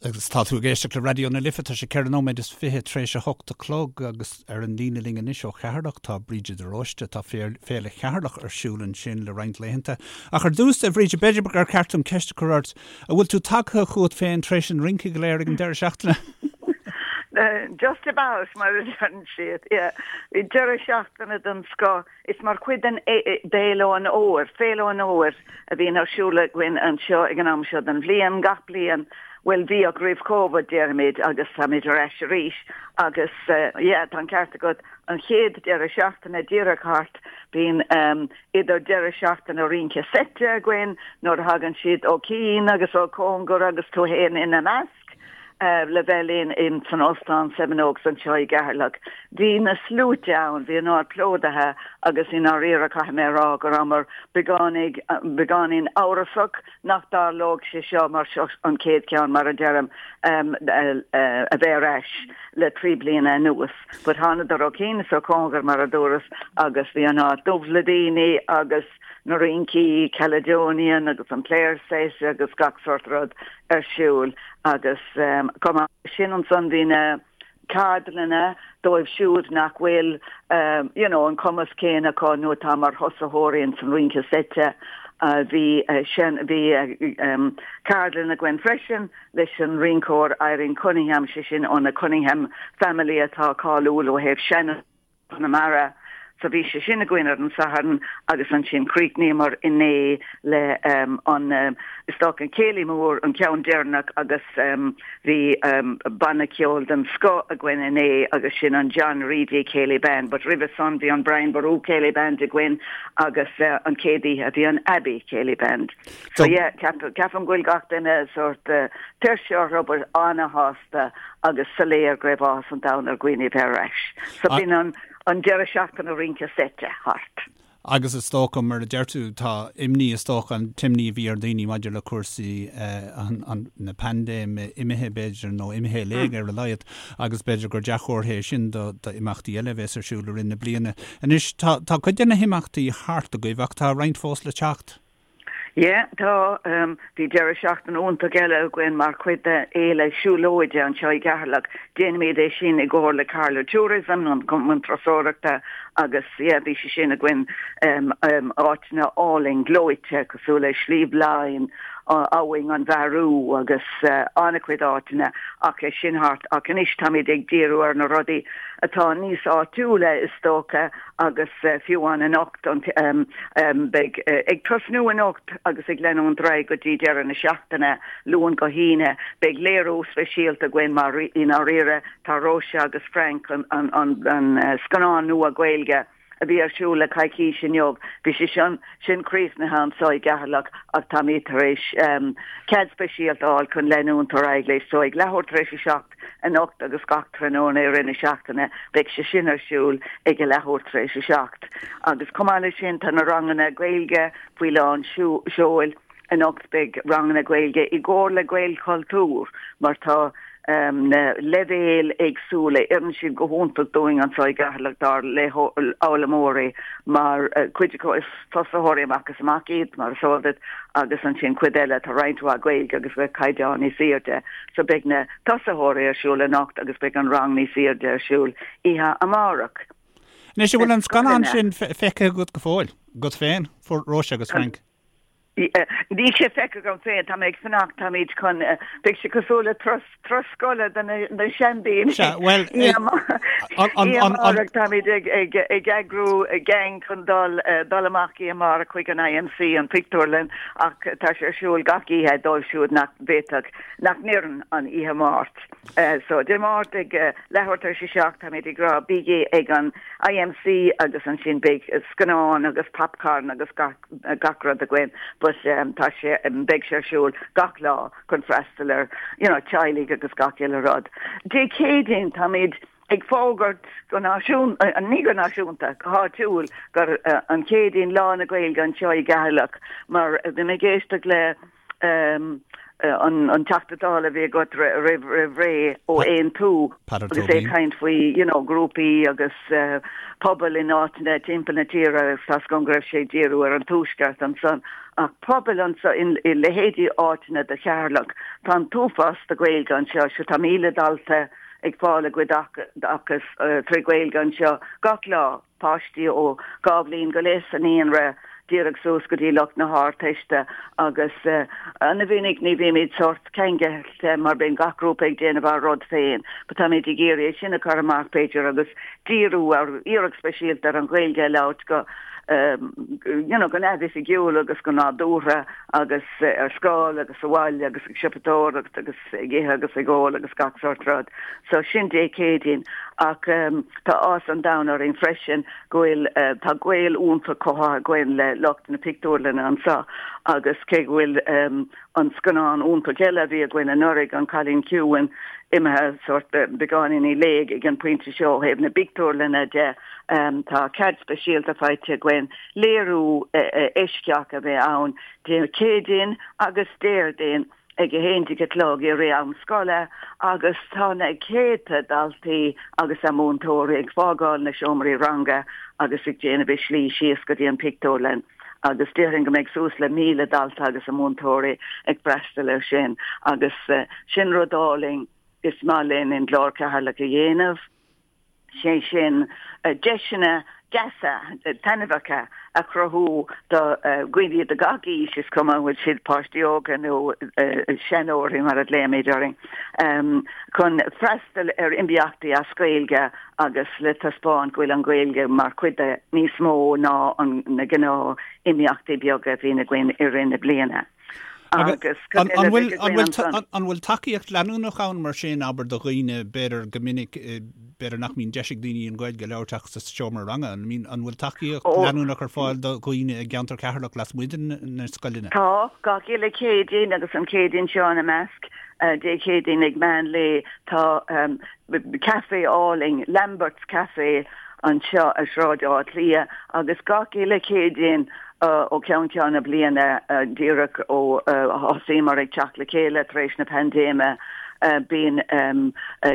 Agus tá tú ag éisteacht le Raidió na Life, tá sé 4 nóiméad is 20 tar éis a 8 a chlog agus ar an líne linn anois ó Cheatharlach tá Bríde de Róiste. Tá Féile Cheatharlach ar siúl ansin le roinnt laethanta. Ach ar dtús, a Bhríde, b'fhéidir gur ceart dom ceist a chur ort, an bhfuil tú tagtha chugat féin tar éis an rince go léir ag an deireadh seachtaine? Just about, mar a deireann siad. Yeah. Bhí deireadh seachtaine den scoth. Is mar chuid den d'Fhéile an Fhómhair, Féile an Fhómhair, a bhíonn ar siúl againn anseo ag an am seo den bhliain, gach bliain, bhuel, bhíodh roimh Covid, déarfaimid, agus táimid ar ais arís agus yeah, tá an ceart agat, an chéad deireadh seachtaine díreach thart, bíonn idir deireadh seachtaine rince seite againn nuair a thagann siad ó chian agus ó chóngar agus tú fhéin ina measc. le bheith linn in san Óstán Seven Oaks anseo i gCeatharlach. Bhí na sluaite ann, bhí an áit plódaithe agus i ndáiríre caithfidh mé a rá go rabhamar beagáinín, beagáinín amhrasach nach dtarlódh sé seo mar seo an chéad cheann mar a deirim a bheith ar ais le 3 bliana anuas. But thánadar ó chian is ó chóngar mar a dúras agus bhí an áit dubh le daoine agus na rincí Caledonian agus an Players Set agus gach sort rud ar siúl agus chomh maith leis sin ansan bhí na ceardlanna dóibh siúd nach bhfuil you know an cumas céanna acu nó atá mar thosaitheoirí ins an rince seite. Bhí sin bhí ceardlann againn freisin leis an rinceoir Irene Cunningham, sé sin ó na Cunningham family atá cáiliúil ó thaobh sean Chonamara. So bhí sé sin againn ar an Satharn agus ansin chríochnaíomar inné le an, is dócha, an céilí mór, an ceann deireanach agus bhí banna ceoil den scoth againn inné agus sin an John Reidy Céilí Band but roimhe san bhí an Brian Boru Céilí Band againn agus an chéad oíche bhí an Abbey Céilí Band. So yeah, ceapaim go bhfuil gach duine sórt tuirseach orthu but ana-shásta. agus soiléir go raibh áthas an domhain ar dhaoine a bheith ar ais. So b'in an an deireadh seachtaine rince seite thart. Agus is dócha, mar a deir tú, tá imní, is dócha, an t-imní a bhí ar dhaoine maidir le cúrsaí na paindéime imithe, b'fhéidir, nó imithe i léig ar a laghad, agus b'fhéidir gur dea-chomhartha é sin do d'imeachtaí eile a bheas ar siúl i rith na bliana. Anois, tá tá cuid de na himeachtaí thart agaibh ach tá roinnt fós le teacht. Yeah, tá. Bhí deireadh seachtaine iontach eile againn mar chuid de fhéile siúlóide anseo i gCeatharlach. Déanaimid é sin i gcomhar le Carlow Tourism, an Cumann Turasóireachta, agus yeah, bhí sé sin againn áiteanna álainn gleoite cosúil le Sliabh Laighin, Abhainn an Bhearú agus an-chuid áiteanna ach é sin thart. Ach anois táimid ag díriú ar na rudaí atá níos áitiúla is dócha agus fiú amháin anocht, beidh ag tosnú anocht agus ag leanúint ar aghaidh go dtí deireadh na seachtaine, Luan go hAoine, beidh léiriú speisialta againn mar i ndáiríre tá Róise agus Frank, an scannán nua Gaeilge a bhí ar siúl le coicís inniu, bhí sé sin críochnaithe anseo i gCeatharlach ach táimid tar éis cead speisialta a fháil chun leanúint ar aghaidh leis so ag leathuair tar éis a 7 anocht agus gach tráthnóna i rith na seachtaine. Beidh sé sin ar siúl ag a leathuair tar éis a 7. Agus chomh maith leis sin tá na ranganna Gaeilge faoi lán seoil. Anocht beidh ranganna Gaeilge i gcomhar le Gaelchultúr mar tá na leibhéil éagsúla. Oireann siad go hiontach dúinn anseo i gCeatharlach dár bhfoghlaimeoirí mar cuid acu is tosaitheoirí amach is amach iad, mar is eol duit, agus ansin cuid eile, tá roinnt mhaith Gaeilge agus beidh caighdeán níos airde. So beidh na tosaitheoirí ar siúl anocht agus beidh an rang níos airde ar siúl oíche amárach. Anois, an bhfuil an scannán sin feicthe agat go fóill, agat féin, Róise agus Frank? Níl sé feicthe agam féin, tá mé ag fanacht, táimid chun, beidh sé cosúil le turas, turas scoile do na seandaoine. Sea, bhuel, Oíche amárach táimid ag, ag, ag eagrú gang chun dul, dul amach oíche amárach chuig an IMC, an pictiúrlann, ach tá sé ar siúl gach oíche dóibh siúd nach bhféadfadh, nach n-oireann an oíche Máirt. So, Dé Máirt ag leathuair tar éis a 7 táimid ag rá bígí ag an IMC agus ansin beidh scannán agus popcorn agus gach gach rud againn but tá sé, beidh sé ar siúl gach lá chun freastal ar you know teaghlaigh agus gach uile rud. Dé Céadaoin táimid ag fógairt go náisiún, ní go náisiúnta, go háitiúil gur an Chéadaoin Lá na Gaeilge anseo i gCeatharlach mar bhí mé ag éisteacht le an Teachta Dála a bhí agat roimh ré ó Aontú agus é ag caint faoi you know grúpaí agus pobail in áiteanna timpeall na tíre agus tá 's agam go raibh sé ag díriú ar an Tuaisceart ansan. Ach pobail anseo i leithéidí áiteanna de Cheatharlach, tá an t-uafás de Ghaeilge anseo, sure tá 1,000 dalta ag fáil a gcuid oideachas tré Ghaeilge anseo gach lá, páistí ó 2 bhliain go leith sa naíonra díreach suas go dtí lucht na hArdteiste agus ana-mhinic ní bhímid sórt ceangailte mar bíonn gach grúpa ag déanamh a rud féin but táimid ag iarraidh é sin a chur amach b'fhéidir agus díriú ar iarracht speisialta ar an Ghaeilge a labhairt go you know go neamhoifigiúil agus go nádúrtha agus ar scoil agus sa bhaile agus ag siopadóireacht agus ag ithe agus ag ól agus gach sórt rud. So sin Dé Céadaoin ach tá áthas an domhain orainn freisin go bhfuil tá gaol iontach cothaithe againn le lucht na pictiúrlainne anseo agus cé go bhfuil an scannán iontach eile a bhí againn anuraidh, An Cailín Ciúin, imithe sórt beagáinín i léig ag an bpointe seo ó thaobh na bpictiúrlanna de. Tá cead speisialta faighte againn léiriú eisceach a bheith ann Dé Céadaoin agus Déardaoin ag a 11 a chlog i rith am scoile agus tá na céadta daltaí agus a múinteoirí ag fágáil na seomraí ranga agus ag déanamh a slí síos go dtí an pictiúrlann. agus déarfainn go mbeidh suas le 1,000 dalta agus a múinteoirí ag freastal air sin agus sin rud álainn is maith linn in Glór Cheatharlach a dhéanamh, sé sin deiseanna deasa, taitneamhacha a chruthú do dhaoine de gach aois, is cuma an bhfuil siad páistí óga nó seanóirí mar a ghlaoimid orainn, chun freastal ar imeachtaí as Gaeilge agus le taispeáint go bhfuil an Ghaeilge mar chuid de níos mó ná na gnáth imeachtaí beaga a bhíonn againn i rith na bliana. Agus cad eile a bheidh againn ansan? An bhfuil tacaíocht leanúnach ann mar sin, abair, do dhaoine, b'fhéidir go minic, b'fhéidir nach mbíonn deis ag daoine an Ghaeilge a labhairt ach sa seomra ranga, an bhfuil tacaíocht leanúnach ar fáil do dhaoine i gceantar Cheatharlach lasmuigh de na scoileanna? Tá, gach uile Chéadaoin agus an Chéadaoin seo ina measc, Dé Céadaoin ag meán lae, tá caife álainn, Lambert's Café, anseo ar Shráid Átha Cliath agus gach uile Chéadaoin ó cheann ceann na bliana, díreach ó thosaíomar ag teacht le chéile tar éis na paindéime, bíonn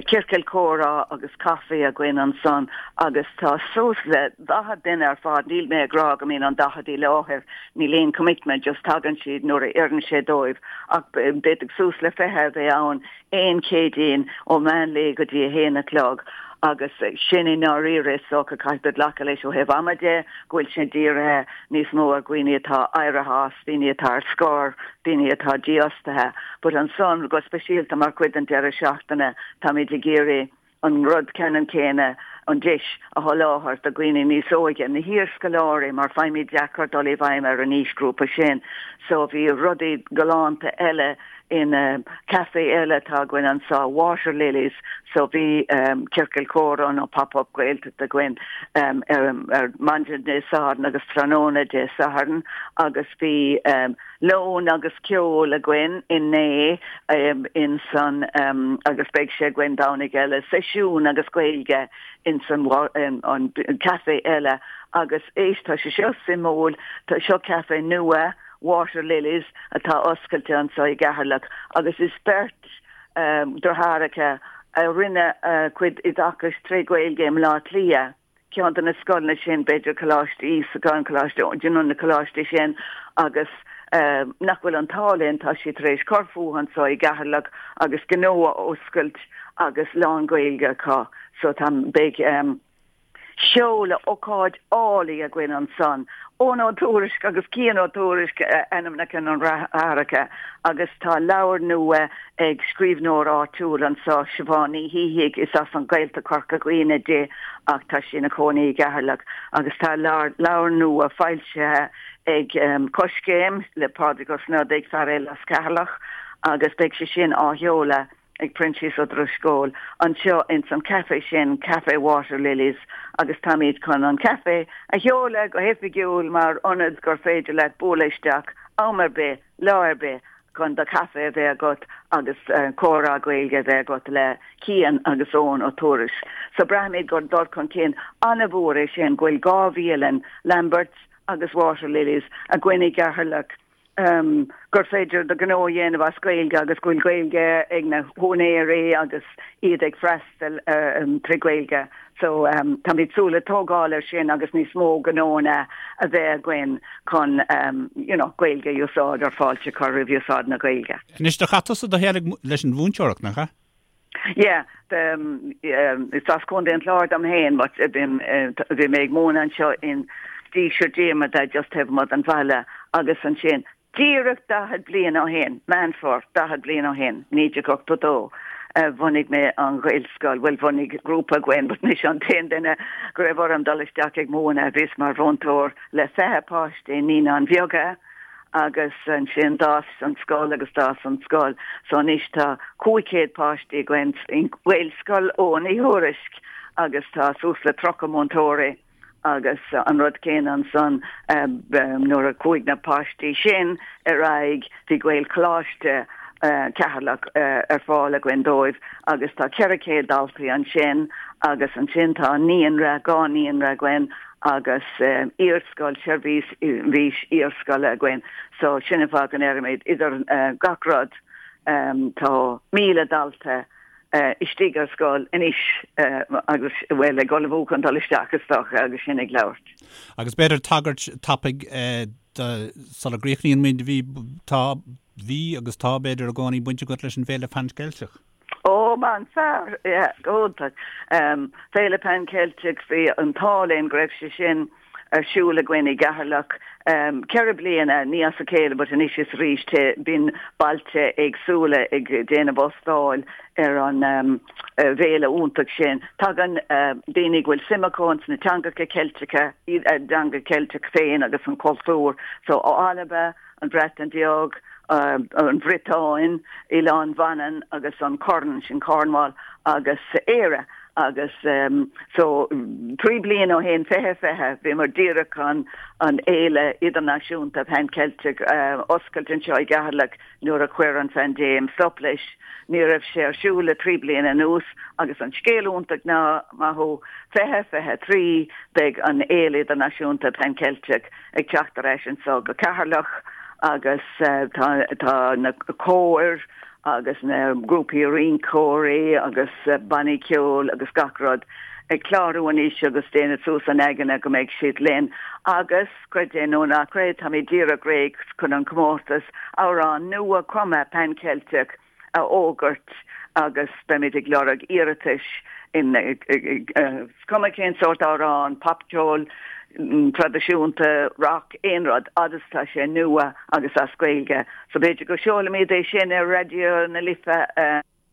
ciorcal comhrá agus caife againn ansan agus tá suas le 40 duine ar fad, níl mé ag rá go mbíonn an 40 i láthair, níl aon commitment, just tagann siad nuair a oireann sé dóibh ach d'fhéadfadh suas le 20 a bheith ann aon Chéadaoin ó mheán lae go dtí a haon a chlog agus sin i ndáiríre is dócha caithfidh tú glacadh leis ó thaobh ama de go bhfuil sé dírithe níos mó ar dhaoine atá éirithe as, daoine atá ar scor, daoine atá dífhostaithe. But ansan go speisialta mar chuid den deireadh seachtaine táimid ag iarraidh an rud ceannann céanna, an deis a sholáthar do dhaoine níos óige, na hiarscoláirí, mar faighimid deacair dul i bhfeidhm ar an aoisghrúpa sin. So bhí rudaí galánta eile in caife eile atá againn anseo, Water Lilies, so bhí ciorcal comhrá nó pop-up Gaeltacht againn ar maidin Dé Sathairn agus tráthnóna Dé Sathairn agus bhí lón agus ceol againn inné in san agus beidh sé againn Domhnaigh eile, seisiún agus Gaeilge in san an caife eile agus éist tá sé seo suimiúil, tá seo caife nua, Water Lilies, atá oscailte anseo i gCeatharlach agus is beirt deartháireacha a rinne a gcuid oideachais tré Ghaeilge i mBleá Cliath. ceann de na scoileanna sin, b'fhéidir Coláiste Íosagáin, Coláiste, you know, na coláistí sin agus nach bhfuil an t-ádh linn, tá siad tar éis cur fúthu anseo i gCeatharlach agus gnó a oscailt agus lán-Ghaeilge acu. So tá, beidh seoladh ócáid álainn againn ansan. Eoin Ó Tuairisg agus Cian Ó Tuairisg ainmneacha na ndeartháireacha agus tá leabhar nua ag scríbhneoir áitiúil anseo, Siobhán Ní Shíthigh, is as an Ghaeltacht Chorca Dhuibhne di ach tá sí ina cónaí i gCeatharlach agus tá leabhar nua foilsithe ag Coiscéim le Pádraig Ó Snodaigh, fear eile as Ceatharlach, agus beidh sé sin á sheoladh ag Proinsias Ó Drisceoil anseo ins an caife sin, Café Water Lilies, agus táimid chun an caife a sheoladh go hoifigiúil mar ionad gur féidir leat bualadh isteach am ar bith, lá ar bith chun do chaife a bheith agat agus comhrá Gaeilge a bheith agat le Cian agus Eoin Ó Tuairisg. So braithimid gur dul chun cinn an-mhór é sin go bhfuil 2 bhialann, Lamberts agus Water Lilies, againn i gCeatharlach. Gur féidir do ghnó a dhéanamh as Gaeilge agus go bhfuil Gaeilge ag na húinéirí agus iad ag freastal trí Ghaeilge. So táimid ag súil le tógáil ar sin agus níos mó gnóanna a bheith againn chun you know Gaeilge a úsáid or fáilte a chur roimh úsáid na Gaeilge. Anois do chaith tusa do shaol leis an mhúinteoireacht, nach ea? Yeah, is as Contae an Chláir dom féin but bhí mé ag múineadh anseo in Díseart Diarmada just taobh amuigh den bhaile agus ansin díreach 40 bliain ó shin, Meán Fómhair, 40 bliain ó shin, 1982, bhunaigh mé an Ghaelscoil, bhuel bhunaigh grúpa againn but mise an t-aon duine go raibh orm dul isteach ag múineadh, bhíos mar mhúinteoir le 20 páiste i Naíonáin Bheaga. agus ansin d'fhás an scoil agus d'fhás an scoil so anois tá 500 páistí againn i nGaelscoil Eoghain Uí Thuairisc agus tá suas le 30 múinteoirí agus an rud céanna ansan nuair a chuaigh na páistí sin ar aghaidh bhí Gaelcholáiste Cheatharlach ar fáil againn dóibh agus tá 400 daltaí ansin agus ansin tá naíonra, dhá naíonra againn agus iarscoil, seirbhís iarscoile againn. So sin an fáth go ndeirimid idir gach rud tá 1,000 dalta istigh ar scoil anois agus, bhuel, ag ullmhú chun dul isteach is dócha agus sinn ag labhairt. Agus b'fhéidir tagairt tapaidh sula gcríochnaíonn muid, bhí, tá, bhí agus tá b'fhéidir i gcónaí baint agat leis an bhFéile Pan Cheilteach. Ó, man fear, yeah, go hiontach. Féile Pan Ceilteach, bhí an t-ádh linn go raibh sé sin ar siúl againn i gCeatharlach ceithre bliana, ní as a chéile but anois is arís bíonn bailte éagsúla ag déanamh óstáil ar an bhféile iontach sin. Tagann daoine go bhfuil suim acu ins na teangacha Ceilteacha, a dteanga Ceilteach féin agus an cultúr, so ó Alba, an Bhreatain Bheag, an Bhriotáin, Oileán Mhanann agus an Corn, sin Cornwall, agus Éire. Agus so trí bliana ó shin, 2020, bhíomar díreach chun an fhéile idirnáisiúnta Pan Celtic a oscailt anseo i gCeatharlach nuair a chuir an phaindéim stop leis. Ní raibh sé ar siúl le trí bliana anuas agus an scéal iontach ná, maith thú, 2023 beidh an fhéile idirnáisiúnta Pan Celtic ag teacht ar ais anso go Ceatharlach agus tá na cóir agus na grúpaí rinceoirí agus bannaí ceoil agus gach rud ag clárú anois agus déanamh suas a n-aigne go mbeidh siad linn agus, creid é nó ná creid, táimid díreach réidh chun an comórtas amhrán nua cumtha Pan Ceilteach a fhógairt agus beimid ag lorg iarratais in is cuma cén sórt amhrán, popcheol traidisiúnta, rock, aon rud, fhad is tá sé nua agus as Gaeilge. So b'fhéidir go seolfaimid é sin ar Raidió na Life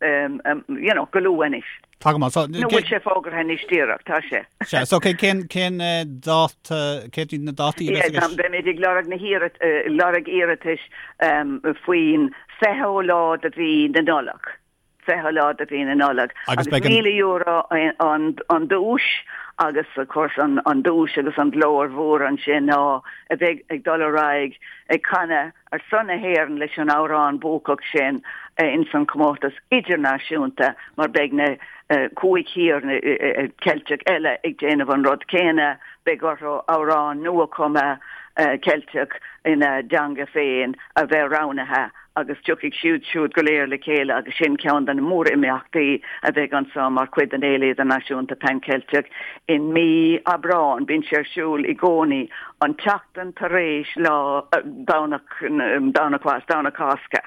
you know, go luath anois. Tá go maith. So, Nó bhfuil sé fógartha anois díreach, tá sé. Sea, so cén, cén dáta, cén iad na dátaí a bheas i gceist? Beimid ag lorg na hiarrat, lorg iarratais faoin 20ú lá de mhí na Nollag. 20ú lá de mhí na Nollag. Agus beidh an. €1,000 an, an duais agus of course an, an duais agus an glóir mhór ansin ná a bheith ag dul ar aghaidh ag canadh ar son na hÉireann leis an amhrán buacach sin ins an chomórtas idirnáisiúnta mar beidh na cúig thír Ceilteach eile ag déanamh an rud céanna, beidh orthu amhrán nua-chumtha Ceilteach ina dteanga féin a bheith roghnaithe agus tiocfaidh siad siúd go léir le chéile agus sin ceann de na mór-imeachtaí a bheidh anso mar chuid den Fhéile Idirnáisiúnta Pan Ceilteach i mí Aibreáin. Bíonn sé ar siúl i gcónaí an tseachtain tar éis lá Domhnach Domhnach Domhnach Cásca.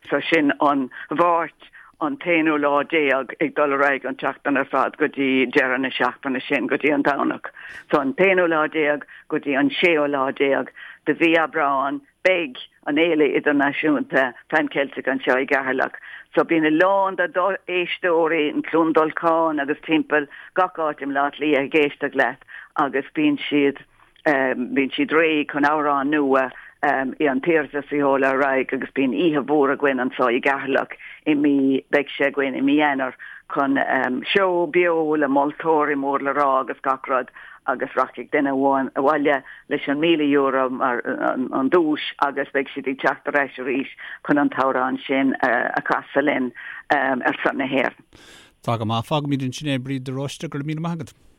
So sin an Mháirt an t-aonú lá déag ag dul ar aghaidh an tseachtain ar fad go dtí deireadh na seachtaine sin go dtí an Domhnach. So an t-aonú lá déag go dtí an séú lá déag de mhí Aibreáin Beidh an Fhéile Idirnáisiúnta Pan Celtic anseo i gCeatharlach so bíonn a lán de d'éisteoirí in Cluain Dolcáin agus timpeall gach áit i mBleá Cliath ag éisteacht leat agus bíonn siad bíonn siad réidh chun amhrán nua i an t-iarratas a sheoladh ar aghaidh agus bíonn oíche mhór againn anseo i gCeatharlach i mí beidh sé againn i mí Eanáir chun seó beo le moltóirí mór le rá agus gach rud agus rachaidh duine amháin abhaile leis an €1,000 mar an duais agus beidh siad ag teacht ar ais arís chun an t-amhrán sin a chasadh linn ar son na hÉireann. Tá go maith. Fágfaimid ansin é, Bríd de Róiste, go raibh míle maith agat.